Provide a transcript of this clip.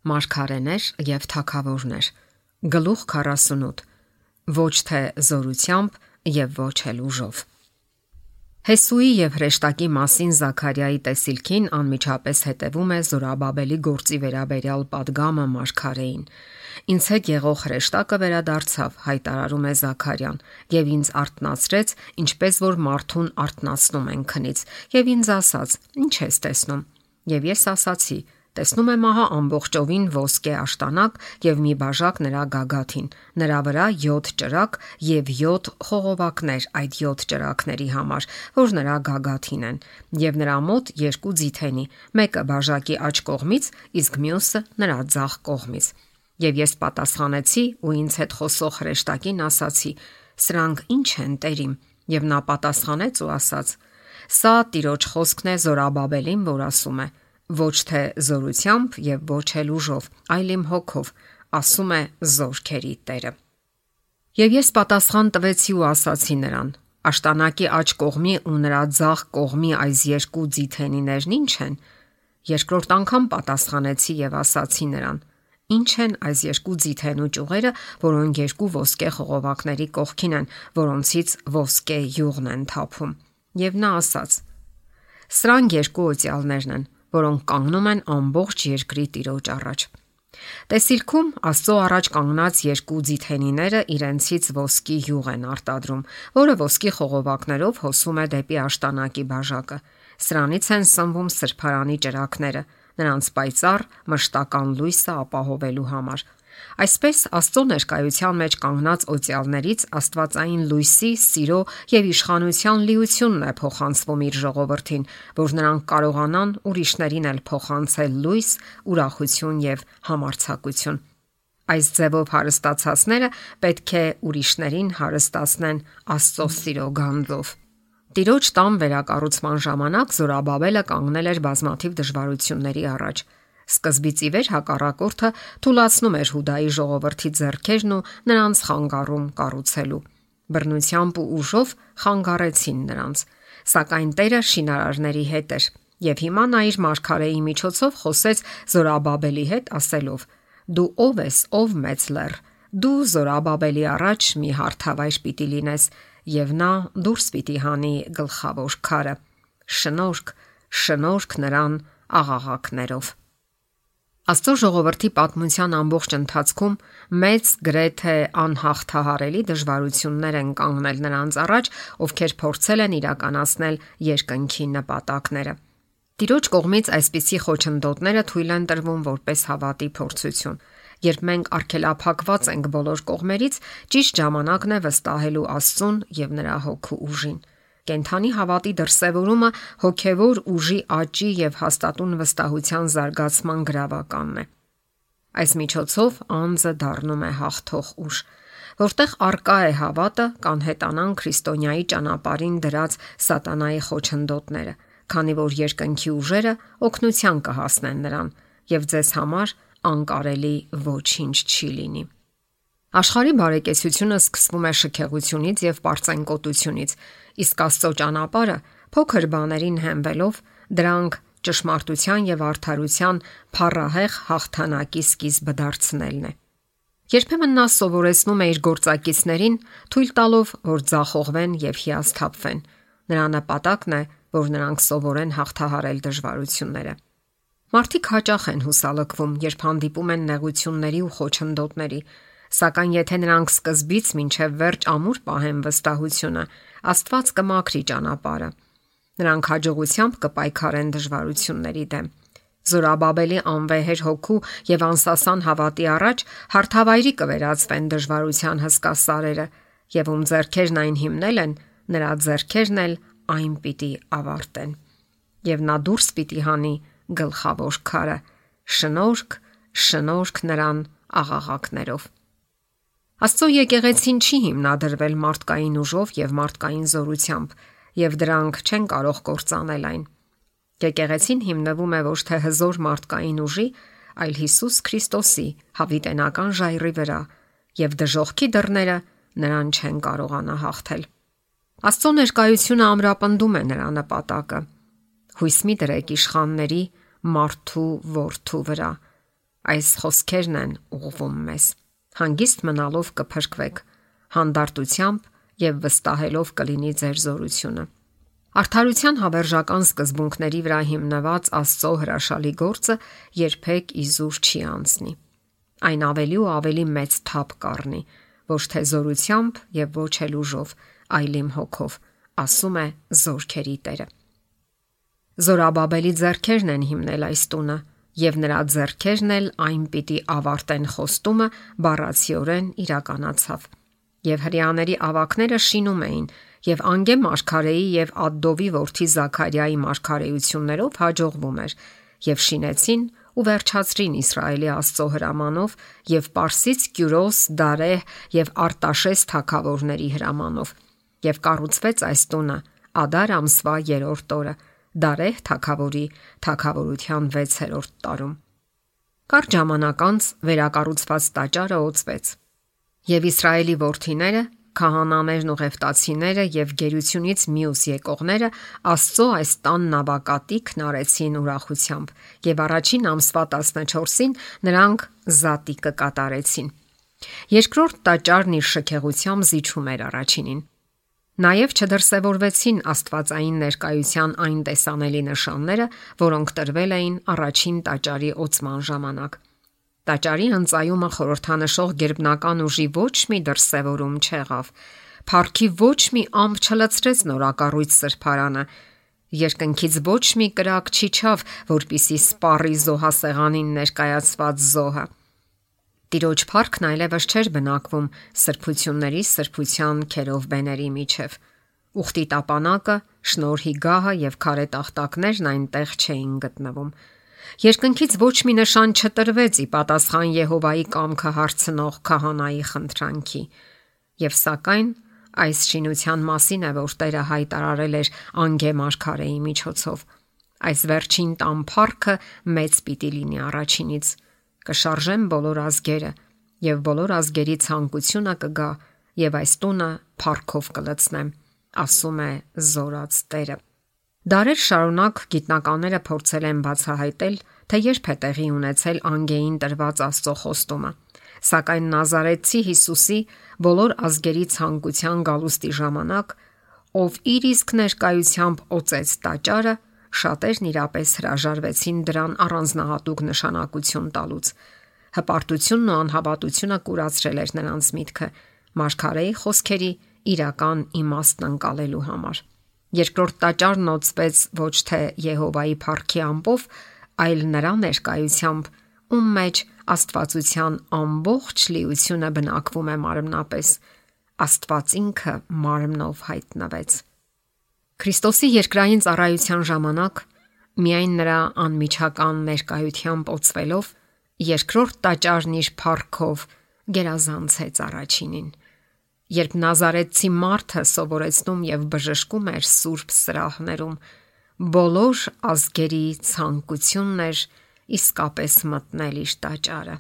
Մարգարեներ եւ թագավորներ։ Գլուխ 48։ Ոչ թե զորությամբ եւ ոչ էլ ուժով։ Հեսուի եւ հրեշտակի մասին Զաքարիայի տեսիլքին անմիջապես հետևում է Զորաբաբելի գործի վերաբերյալ պատգամը մարգարեին։ Ինձ հետ եղող հրեշտակը վերադարձավ, հայտարարում է Զաքարյան, եւ ինձ արթնացրեց, ինչպես որ մարդուն արթնացնում են քնից, եւ ինձ ասաց. «Ինչ ես տեսնում»։ Եվ ես ասացի. «Տեսնում եմ ահա ամբողջովին ոսկե աշտանակ եւ մի բաժակ նրա գագաթին, նրա վրա 7 ճրագ եւ 7 խողովակներ այդ 7 ճրագների համար, որ նրա գագաթին են, եւ նրա մոտ 2 ձիթենի, մեկը բաժակի աջ կողմից, իսկ մյուսը նրա ձախ կողմից»։ Եվ ես պատասխանեցի ու ինձ հետ խոսող հրեշտակին ասացի. «Սրանք ի՞նչ են, Տերիմ»։ Եվ նա պատասխանեց ու ասաց. «Սա Տիրոջ խոսքն է Զորաբաբելին, որ ասում է. ոչ թե զորությամբ եւ ոչ էլ ուժով, այլ իմ հոգով, ասում է զորքերի Տերը»։ Եվ ես պատասխան տվեցի ու ասացի նրան. «Աշտանակի աջ կողմի ու նրա ձախ կողմի այս 2 ձիթենիներն ի՞նչ են»։ Երկրորդ անգամ պատասխանեցի եւ ասացի նրան. «Ինչ են այս 2 ձիթենու ճյուղերը, որոնք 2 ոսկե խողովակների կողքին են, որոնցից ոսկե յուղն են թափում»։ Եվ նա ասաց. «Սրանք 2 օծյալներն են, որոնք կանգնում են ամբողջ երկրի Տիրոջ առաջ»։ Տեսիլքում Աստծո առաջ կանգնած 2 ձիթենիները իրենցից ոսկի յուղ են արտադրում, որը ոսկի խողովակներով հոսում է դեպի աշտանակի բաժակը։ Սրանից են սնվում սրբարանի ճրագները, նրանց պայծառ մշտական լույսը ապահովելու համար։ Այսպես Աստծո ներկայության մեջ կանգնած օծյալներից աստվածային լույսի, սիրո եւ իշխանության լիությունն է փոխանցվում իր ժողովրդին, որ նրանք կարողանան ուրիշներին էլ փոխանցել լույս, ուրախություն եւ համարձակություն։ Այս ձևով հարստացածները պետք է ուրիշներին հարստացնեն Աստծո սիրո գանձով։ Տիրոջ տան վերակառուցման ժամանակ Զորաբաբելը կանգնել էր բազմաթիվ դժվարությունների առաջ։ Սկզբից ի վեր հակառակորդը թուլացնում էր Հուդայի ժողովրդի ձեռքերն ու նրանց խանգարում կառուցելու։ Բռնությամբ ու ուժով խանգարեցին նրանց, սակայն Տերը շինարարների հետ էր, եւ հիմա նա իր մարգարեի միջոցով խոսեց Զորաբաբելի հետ ասելով. «Դու ով ես, ով մեծ լեռ, դու Զորաբաբելի առաջ մի հարթավայր պիտի լինես, եւ նա դուրս պիտի հանի գլխավոր քարը։ Շնորհք, շնորհք նրան աղաղակներով»։ Աստծո ժողովրդի պատմության ամբողջ ընթացքում մեծ գրեթե անհաղթահարելի դժվարություններ են կանգնել նրանց առաջ, ովքեր փորձել են իրականացնել երկնքի նպատակները։ Տիրոջ կողմից այսպիսի խոչընդոտները թույլ են տրվում որպես հավատի փորձություն։ Երբ մենք արգելափակված ենք բոլոր կողմերից, ճիշտ ժամանակն է վստահելու Աստծուն եւ նրա հոգու ուժին։ Կենթանի հավատի դրսևորումը հոգևոր ուժի աճի եւ հաստատուն վստահության զարգացման գրավականն է։ Այս միջոցով անձը դառնում է հաղթող ուժ։ Որտեղ արկա է հավատը, կանհետանան քրիստոնյայի ճանապարհին դրած սատանայի խոչընդոտները, քանի որ երկնքի ուժերը օգնության կհասնեն նրան եւ ձեզ համար անկարելի ոչինչ չի լինի։ Աշխարհի բարեկեցությունը սկսվում է շքեղությունից եւ պարծենկոտությունից, իսկ Աստծո ճանապարհը փոքր բաներին հենվելով դրանք ճշմարտության եւ արդարության փառահեղ հաղթանակի սկիզբը դարձնելն է։ Երբեմն նա սովորեցնում է իր գործակիցներին, թույլ տալով, որ ձախողվեն եւ հիասթափվեն։ Նրա նպատակն է, որ նրանք սովորեն հաղթահարել դժվարությունները։ Մարդիկ հաճախ են հուսալքվում, երբ հանդիպում են նեղությունների ու խոչընդոտների, սակայն եթե նրանք սկզբից մինչև վերջ ամուր պահեն վստահությունը, Աստված կմաքրի ճանապարհը։ Նրանք հաջողությամբ կպայքարեն դժվարությունների դեմ։ Զորաբաբելի անվեհեր հոգու եւ անսասան հավատի առաջ հարթավայրի կվերածվեն դժվարության հսկա սարերը, եւ ում ձեռքերն այն հիմնել են, նրա ձեռքերն էլ այն պիտի ավարտեն։ Եվ նա դուրս պիտի հանի գլխավոր քարը։ Շնորհք, շնորհք նրան աղաղակներով։ Աստծո եկեղեցին չի հիմնադրվել մարդկային ուժով եւ մարդկային զորությամբ, եւ դրանք չեն կարող կործանել այն։ Եկեղեցին հիմնվում է ոչ թե հզոր մարդկային ուժի, այլ Հիսուս Քրիստոսի հավիտենական ժայռի վրա, եւ դժոխքի դռները նրան չեն կարողանա հաղթել։ Աստծո ներկայությունը ամրապնդում է նրա նպատակը։ Հույս մի դրեք իշխանների մարդու որդու վրա, Այս խոսքերն են ուղղվում մեզ. հանգիստ մնալով կփրկվեք, հանդարտությամբ եւ վստահելով կլինի ձեր զորությունը։ Արդարության հավերժական սկզբունքների վրա հիմնված Աստծո հրաշալի գործը երբեք իզուր չի անցնի։ Այն ավելի ու ավելի մեծ թափ կառնի, ոչ թե զորությամբ եւ ոչ էլ ուժով, այլ իմ հոգով, ասում է Զորքերի Տերը։ Զորաբաբելի ձեռքերն են հիմնել այս տունը, եւ նրա ձեռքերն էլ այն պիտի ավարտեն խոստումը բառացիորեն իրականացավ։ Եվ հրեաների ավակները շինում էին, եւ Անգե մարգարեի եւ Ադդովի որդի Զաքարիայի մարգարեություններով հաջողվում էր, եւ շինեցին ու վերջացրին Իսրայելի Աստծո հրամանով եւ Պարսից Կյուրոս, Դարեհ եւ Արտաշես թագավորների հրամանով։ Եվ կառուցվեց այս տունը Ադար ամսվա 3-րդ օրը, Դարեհ թագավորի թագավորության 6-րդ տարում։ Կարճ ժամանակ անց վերակառուցված տաճարը օծվեց, եւ Իսրայելի որդիները, քահանաներն ու ղևտացիները եւ գերությունից մյուս եկողները Աստծո այս տան նավակատիքն արեցին ուրախությամբ, եւ առաջին ամսվա 14-ին նրանք զատիկը կատարեցին։ Երկրորդ տաճարն իր շքեղությամբ զիջում էր առաջինին։ Նաև չդրսևորվեցին աստվածային ներկայության այն տեսանելի նշանները, որոնք տրվել էին առաջին տաճարի օծման ժամանակ։ Տաճարի հնծայումը խորհրդանշող գերբնական ուժի ոչ մի դրսևորում չեղավ։ Փառքի ոչ մի ամպ չլցրեց նորակառույց սրբարանը։ Երկնքից ոչ մի կրակ չիջավ, որպիսի սպառի զոհասեղանին ներկայացված զոհը։ Տիրոջ փառքն այլևս չէր բնակվում սրբությունների սրբության քերովբեների միջև։ Ուխտի տապանակը, շնորհի գահը եւ քարե տախտակներն այնտեղ չէին գտնվում։ Երկնքից ոչ մի նշան չտրվեց ի պատասխան Եհովայի կամքը հարցնող քահանայի խնդրանքի։ Եվ սակայն այս շինության մասին է, որ Տերը հայտարարել էր Անգե մարգարեի միջոցով։ Այս վերջին տան փառքը մեծ պիտի լինի առաջինից։ Կշարժեմ բոլոր ազգերը, եւ բոլոր ազգերի ցանկությունը կգա, եւ այս տունը փառքով կլցնեմ, ասում է Զորած Տերը։ Դարեր շարունակ գիտնականները փորձել են բացահայտել, թե երբ է տեղի ունեցել Անգեին տրված Աստծո խոստումը, սակայն Նազարեթցի Հիսուսի բոլոր ազգերի ցանկության գալուստի ժամանակ, ով իր իսկ ներկայությամբ օծեց տաճարը, շատերն իրապես հրաժարվեցին դրան առանձնահատուկ նշանակություն տալուց։ Հպարտությունն ու անհավատությունը կուրացրել էր նրանց միտքը մարգարեի խոսքերի իրական իմաստն ընկալելու համար։ Երկրորդ տաճարն օծվեց ոչ թե Եհովայի փառքի ամպով, այլ նրա ներկայությամբ, ում մեջ աստվածության ամբողջ լիությունը բնակվում է մարմնապես։ Աստված ինքը մարմնով հայտնվեց։ Քրիստոսի երկրային ծառայության ժամանակ միայն նրա անմիջական ներկայությամբ օծվելով երկրորդ տաճարն իր փառքով գերազանցեց առաջինին։ Երբ Նազարեթցի մարդը սովորեցնում եւ բժշկում էր սուրբ սրահներում, բոլոր ազգերի ցանկությունն էր իսկապես մտնել իր տաճարը։